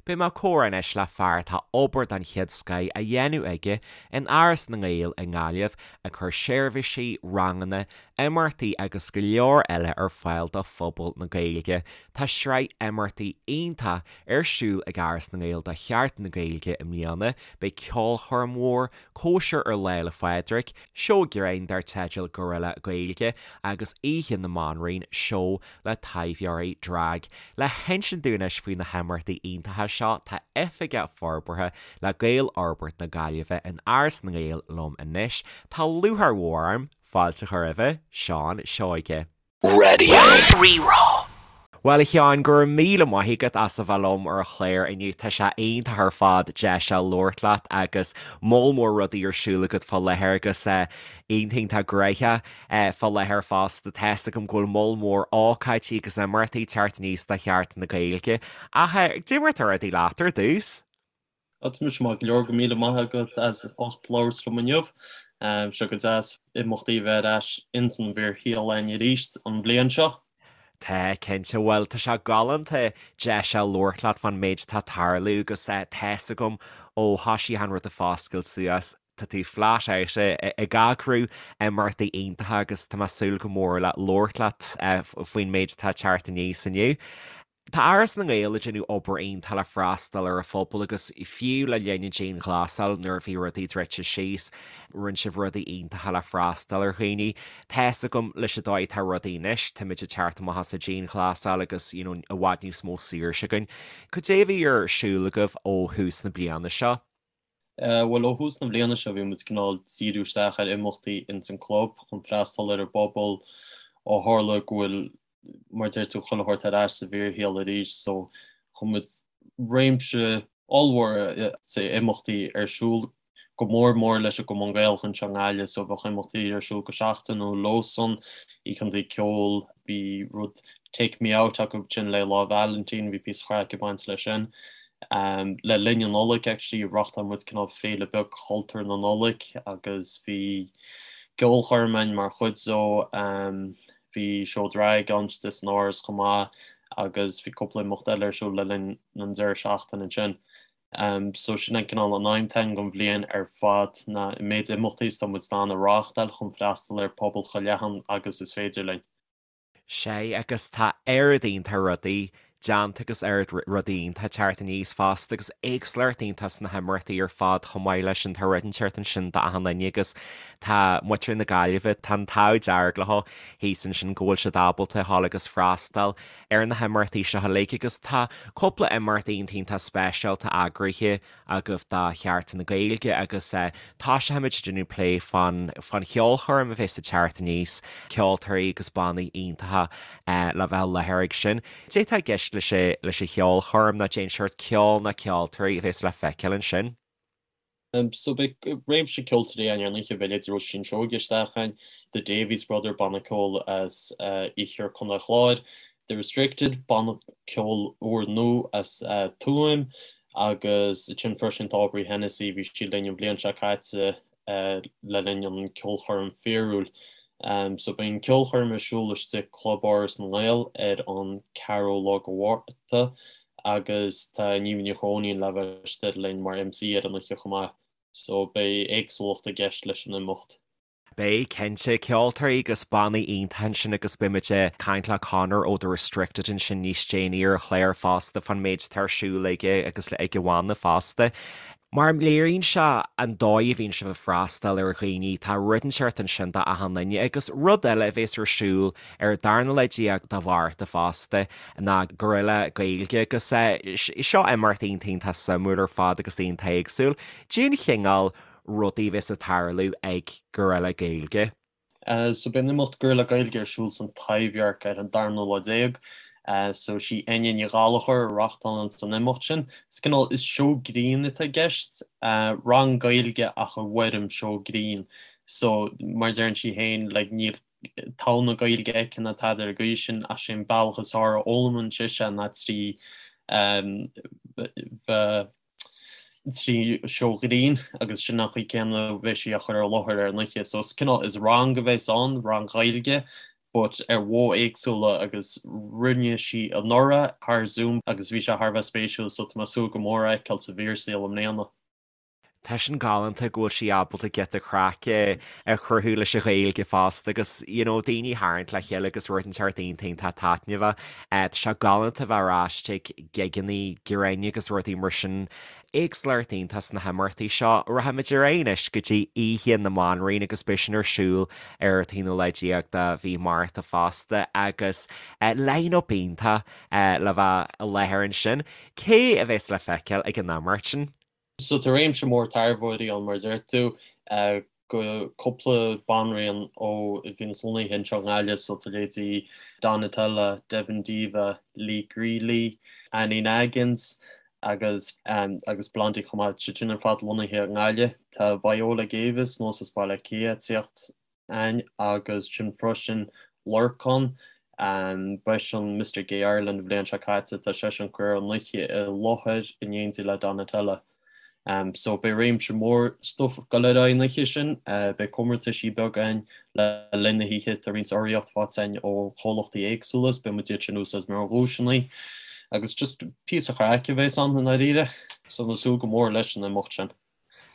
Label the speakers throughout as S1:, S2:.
S1: Beidh mé ag comhrá anois le fear atá obair den chéad scoith á dhéanamh aige in Áras na nGael i nGaillimh, ag cur seirbhísí, ranganna, imeachtaí agus go leor eile ar fáil do phobal na Gaeilge. Tá sraith imeachtaí iontach ar siúl ag Áras na nGael do Sheachtain na Gaeilge i mbliana. Beidh ceolchoirm mhór, cóisir ar Lá 'le Phádraig, seó grinn dar teideal Gorilla Gaeilge agus Oíche na mBanríon, seó le taibheoirí drag. Le hinsint dúinn anois faoi na himeachtaí iontacha seo tá Oifigeach Forbartha le Gaelfhorbairt na Gaillimhe in Áras na nGael liom anois. Tá lúcháir mhór orm fáilte a chur roimhe, Seán Seoige.
S2: Radio Rí-Rá.
S1: Bhuel a Sheáin, go raibh míle maith agat as a bheith liom ar an chlár inniu. Tá sé iontach ar fad deis a labhairt leat agus moll mór rudaí ar siúl agat fá láthair agus iontach iontach gnoitheach fá láthair fosta. Tá's agam go bhfuil moll mór ócáidí agus imeachtaí ag teacht aníos do Sheachtain na Gaeilge. Ach cad é mar atá rudaí leat ar dtús?
S3: Tá mise maith go leor, go míle maith agat as ucht labhairt liom inniu. Sé go deas imeachtaí a bheith ar ais ins an bhfíorshaol againn arís an bhliain seo.
S1: Tá, cinnte. Bhuel, tá sé galánta deis a labhairt leat fán méid atá ag tarlú agus tá's agam ó thoisigh an rud ag foscailt suas, tá tú flat out ag eagrú imeachtaí iontacha agus tá mé ag súil go mór le labhairt leat faoin méid atá ag teacht aníos inniu. Tá Áras na nGael ag déanamh obair iontach le freastal ar an phobal agus fiú le linn an dianghlasáil nuair a bhí rudaí druidte síos, rinne sibh rudaí iontacha le freastal ar dhaoine. Tá's agam leis an dóigh atá rudaí anois, táimid ag teacht amach as an dianghlasáil agus you know i bhfad níos mó saoirse againn. Cad é a bhí ar siúl agaibh ó thús na bliana seo?
S3: Bhuel, ó thús na bliana seo bhí muid cineál díriú isteach ar imeachtaí ins an club chun freastal ar an bpobal ó tharla go bhfuil, mar a deir tú, chuile shórt ar ais sa bhfíorshaol arís so chuir muid réimse ollmhór imeachtaí ar siúl, go mór mór leis an gCumann Gaelach anseo i nGaillimh so bheadh imeachtaí ar siúl go seachtainiúil leosan, oícheanta ceoil, bhí rud Take Me Out acu sin le Lá Vailintín, bhí píosa craic ag baint leis sin. Le linn an Nollaig actually reáchtáil muid cineál féile beag chultúr na Nollag agus bhí ceolchoirm ann mar chuid dó, bhí seó drag ann istigh san Áras chomh maith agus bhí cúpla imeacht eile ar siúl le linn an deireadh seachtaine ansin. So sin an cineál an aidhm atá againn don bhliain ar fad ná an méid imeachtaí is atá muid in ann a reáchtáil chun freastal ar phobal chomh leathan agus is féidir linn.
S1: Sea, agus tá oiread iontach rudaí déanta agus oiread rudaí iontach ag teacht aníos fosta agus éagsúlacht iontach sna himeachtaí ar fad chomh maith leis sin. Tá rud inteacht ansin d'achan duine agus tá muintir na Gaillimhe, tá an t-ádh dearg leo thíos ansin go bhfuil siad ábalta a ghabháil agus freastal ar na himeachtaí seo uilig agus tá cúpla imeacht iontach iontach speisialta eagraithe agaibh do Sheachtain na Gaeilge agus toiseochaimid ag déanamh plé fán fán cheolchoirm a bheas ag teacht aníos, ceoltóirí agus bannaí iontacha le bheith i láthair ag sin. Cad é atá i gceist leis leis an cheolchoirm nó cén seort ceoil nó ceoltóirí a bheas le feiceáil ansin?
S3: So beidh réimse ceoltóirí ann ar an oíche, beidh leithéidí Róisín Seoige isteach ann, The Davies Brother, banna ceoil as iarthar Chontae an Chláir, The Restricted, banna ceoil úr nua as Tuaim, Agus ansin freisin tá Aubrey Hennessy, bhí sí linn an bhliain seo caite le linn an ceolchoirm fíorúil. So beidh an ceolchoirm ar siúl istigh Club Áras na nGael ar an 4ú lá de Mhárta agus tá Niamh Ní Chróinín le bheith istigh linn mar MC ar an oíche chomh maith. So beidh éagsúlacht i gceist leis an imeacht.
S1: Beidh, cinnte. Ceoltóirí agus bannaí iontacha ansin agus beidh muid ag caint le Conor ó The Restricted ansin níos déanaí ar an chlár fosta fán méid atá ar siúl aige agus ag a bhanna fosta. Mar léiríonn sé an dóigh a bhíonn sibh ag freastal ar dhaoine, tá rud inteacht ansin do achan duine agus rud eile a bhéas ar siúl ar an darna lá déag de Mhárta fosta ná Gorilla Gaeilge agus seo imeacht iontach iontach suimiúil ar fad agus iontach éagsúil. Cén chineál rudaí a bheas ag tarlú ag Gorilla Gaeilge.
S3: So beidh an imeacht Gorilla Gaeilge ar siúl san Taibhdhearc ar an darna lá déag. So sí Enya Ní Ghallchóir a reachtálann an imeacht sin. Is cineál, is seó grinn atá i gceist, rang Gaeilge ach i bhfoirm seó grinn. So mar a deireann sí féin, like níl togha na Gaeilge aici ná tada ar an gcaoi sin ach sé an bealach is fearr a fhoghlaimíonn sise ná trí bheith 3 seó grinn agus sin an chaoi céanna a bheidh sí á chur ar láthair ar an oíche. So is cineál, is rang a bheas ann, rang Gaeilge. but ar mhodh éagsúla agus rinne sí anuraidh thar Zoom agus bhí sé thar a bheith spéisiúil so tá mé ag súil go mór é a fheiceáil sa bhfíorshaol i mbliana.
S1: Tá sin galánta go bhfuil sí ábalta giota craice a chruthú leis an Ghaeilge fosta agus you know daoine a tharraingt le chéile agus rud inteacht iontach iontach taitneamhach. Tá sé galánta bheith ar ais ag gigeannaí grinn agus rudaí mar sin. Éagsúlacht iontach sna himeachtaí seo. Rachaimid ar aghaidh anois go dtí Oíche na mBanríon agus beidh sin ar siúl ar an t-aonú lá déag de mhí Márta fosta agus line-up iontach le bheith i láthair ansin. Cé a bheas le feiceáil ag an imeacht sin?
S3: So tá réimse mór taibheoirí ann mar a deir tú, go cúpla banríon ó a bhíonns lonnaithe anseo i nGaillimh, so tá leithéidí Donatella, Devin Diva, Lee Greeley, Annie Naggins agus agus Blondie chomh maith, siad sin ar fad lonnaithe i nGaillimh. Tá Viola Davis anuas as Baile Átha Cliath ag tíocht ann agus ansin freisin Lorcán, b'eisean Mister Gay Ireland an bhliain seo caite, tá seisean ag cur an oíche i láthair in éindí le Donatella. So beidh réimse mór stuif ag dul ar aghaidh an oíche sin, beidh comórtaisí beaga ann le linn na hoíche, tá roinnt urraíocht faighte againn ó chomhlachtaí éagsúla is beidh muid iad sin a úsáid mar dhuaiseanna agus just píosa craic a bheas ann i ndáiríre. So tá mé ag súil go mór leis an imeacht sin.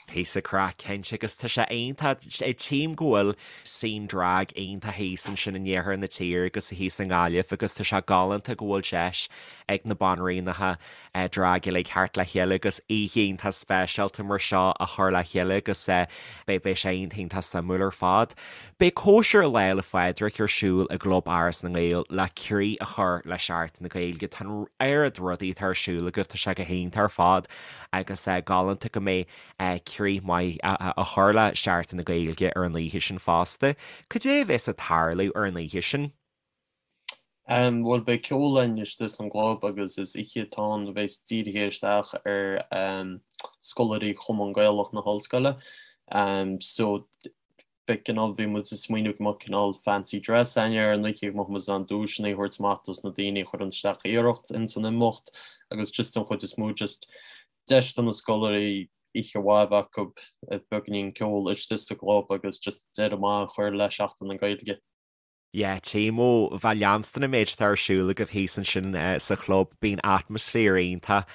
S1: Píosa craic cinnte agus tá sé iontach, tchím go bhfuil scene drag iontach thíos ansin in iarthar na tíre agus thíos i nGaillimh agus tá sé galánta go bhfuil deis ag na banríonacha drag uilig theacht le chéile agus oíche iontach speisialta mar seo a chur le chéile agus beidh beidh sé iontach iontach suimiúil ar fad. Beidh cóisir Lá 'le Phádraig ar siúl i gClub Áras na nGael le croí a chur le Seachtain na Gaeilge. Tá an oiread rudaí atá ar siúl agaibh, tá sé go hiontach ar fad. agus galánta go mbeidh croí maith á chur le Seachtain na Gaeilge ar an oíche sin fosta. Cad é a bheas ag tarlú ar an oíche sin?
S3: Bhuel, beidh ceol againn istigh san gclub agus is oíche atá ann a bheas dírithe isteach ar scoláirí Chumann Gaelach na hOllscoile. So beidh cineál, bhí muid ag smaoineamh go mbeadh cineál fancy dress againn ar an oíche, go mbeadh muid in ann duaiseanna a thabhairt amach dos na daoine a chuireann isteach iarracht ins an imeacht agus just den chuid is mó just deis do na scoláirí oíche mhaith a bheith acu, beagáinín ceoil istigh sa gclub agus just deireadh maith a chur le Seachtain na Gaeilge.
S1: Yeah, tchím ó bheith ag leanstan an méid atá ar siúl agaibh thíos ansin sa chlub, bíonn atmaisféar iontach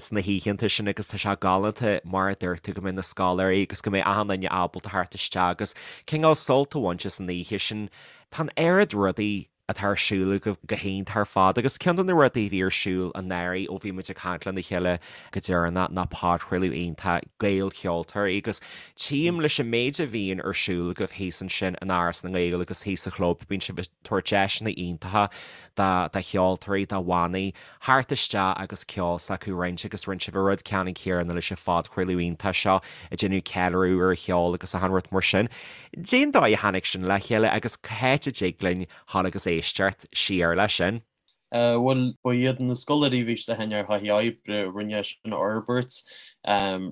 S1: sna hoícheanta sin agus tá sé galánta mar a dúirt tú go mbeidh na scoláirí agus go mbeidh achan duine ábalta theacht isteach agus cineál sult a bhaint as an oíche sin. Tá an oiread rudaí atá ar siúl agaibh go hiontach ar fad agus ceann de na rudaí a bhí ar siúl anuraidh ó bhí muid ag caint lena chéile go deireanach ná podchraoladh iontach Gaelcheoltóirí agus Tchím leis an méid a bhíonn ar siúl agaibh thíos ansin in Áras na nGael agus thíos sa chlub, bíonn sibh ag tabhairt deiseanna iontacha do cheoltóirí, do bhannaí, theacht isteach agus ceol s'acu a roinnt agus rinne sibh an rud ceannann céanna leis an phodchraoladh iontach seo ag déanamh ceiliúradh ar an cheol agus achan rud mar sin. Cén dóigh a tháinig sin le chéile agus cá háit a dtig linn dhul agus éisteacht siar leis sin?
S3: Bhuel, ba iad na scoláirí a bhí istigh againn ar thaithí oibre a rinne é sin a fhorbairt,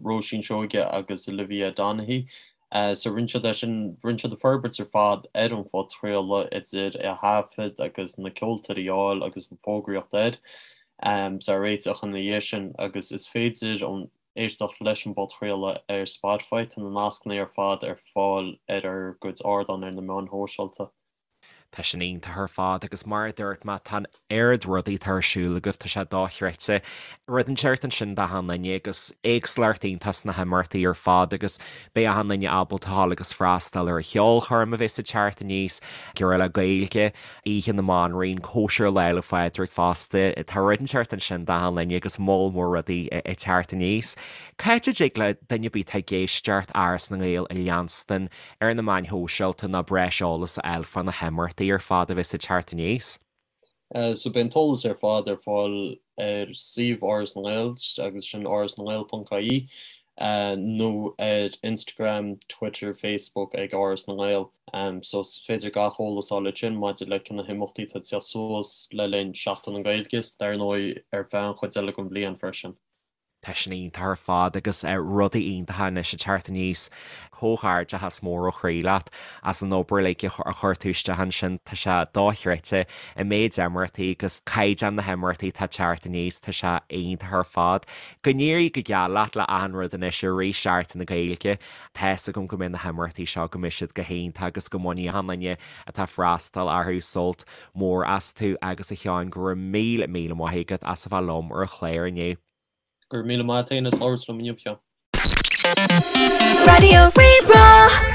S3: Róisín Seoige agus Olivia Donaghy. So rinne siad é sin, rinne siad an forbairt ar fad ar an phodchraoladh, idir é a thaifead agus na ceoltóirí a fháil agus an fógraíocht air, is a réiteach ina dhiaidh sin agus is féidir an éisteacht leis an bpodchraoladh ar Spotify, tá na nascanna ar fad ar fáil ar ár gcuid ardán ar na meáin shóisialta.
S1: Tá sin iontach ar fad agus mar a dúirt mé, tá an oiread rudaí atá ar siúl agaibh, tá sé dochreidte. Rud inteacht ansin d'achan duine agus éagsúlacht iontach sna himeachtaí ar fad agus beidh achan duine ábalta a ghabháil agus freastal ar an cheolchoirm a bheas ag teacht aníos, Girrfhile Gaeilge, Oíche na mBanríon, Cóisir Lá 'le Phádraig fosta. Tá rud inteacht ansin d'achan duine agus moll mór rudaí ag teacht aníos. Cá háit a dtig le duine ar bith atá ag éisteacht Áras na nGael a leanstan ar na meáin shóisialta ná breis eolas a fháil fá na himeachtaí ar fad a bheas ag teacht aníos.
S3: So beidh an t-eolas ar fad ar fáil ar suíomh Áras na nGael agus sin árasnangael.ie nó ar Instagram, Twitter, Facebook ag Áras na nGael. So is féidir gach eolas a fháil ansin maidir le na himeachtaí atá ag teacht suas le linn Seachtain na Gaeilge is dar ndóigh ar feadh an chuid eile den bhliain freisin.
S1: Tá sin iontach ar fad agus rudaí iontacha anois ag teacht aníos. Comhghairdeachas mór ó chroí leat as an obair uilig a chuir tú isteach ansin. Tá sé dochreidte an méid imeachtaí agus caighdeán na himeachtaí atá ag teacht aníos, tá sé iontach ar fad. Go n-éirí go geal leat le achan rud anois i rith Seachtain na Gaeilge. Tá's agam go mbeidh na himeachtaí seo, go mbeidh siad go hiontach agus go mbainfidh achan duine atá ag freastal orthu sult mór astu agus a Sheáin go raibh míle míle maith agat as a bheith liom ar an chlár inniu.
S3: Go raibh míle maith agat féin as labhairt liom inniu, a Sheáin.
S2: Raidió Rí-Rá.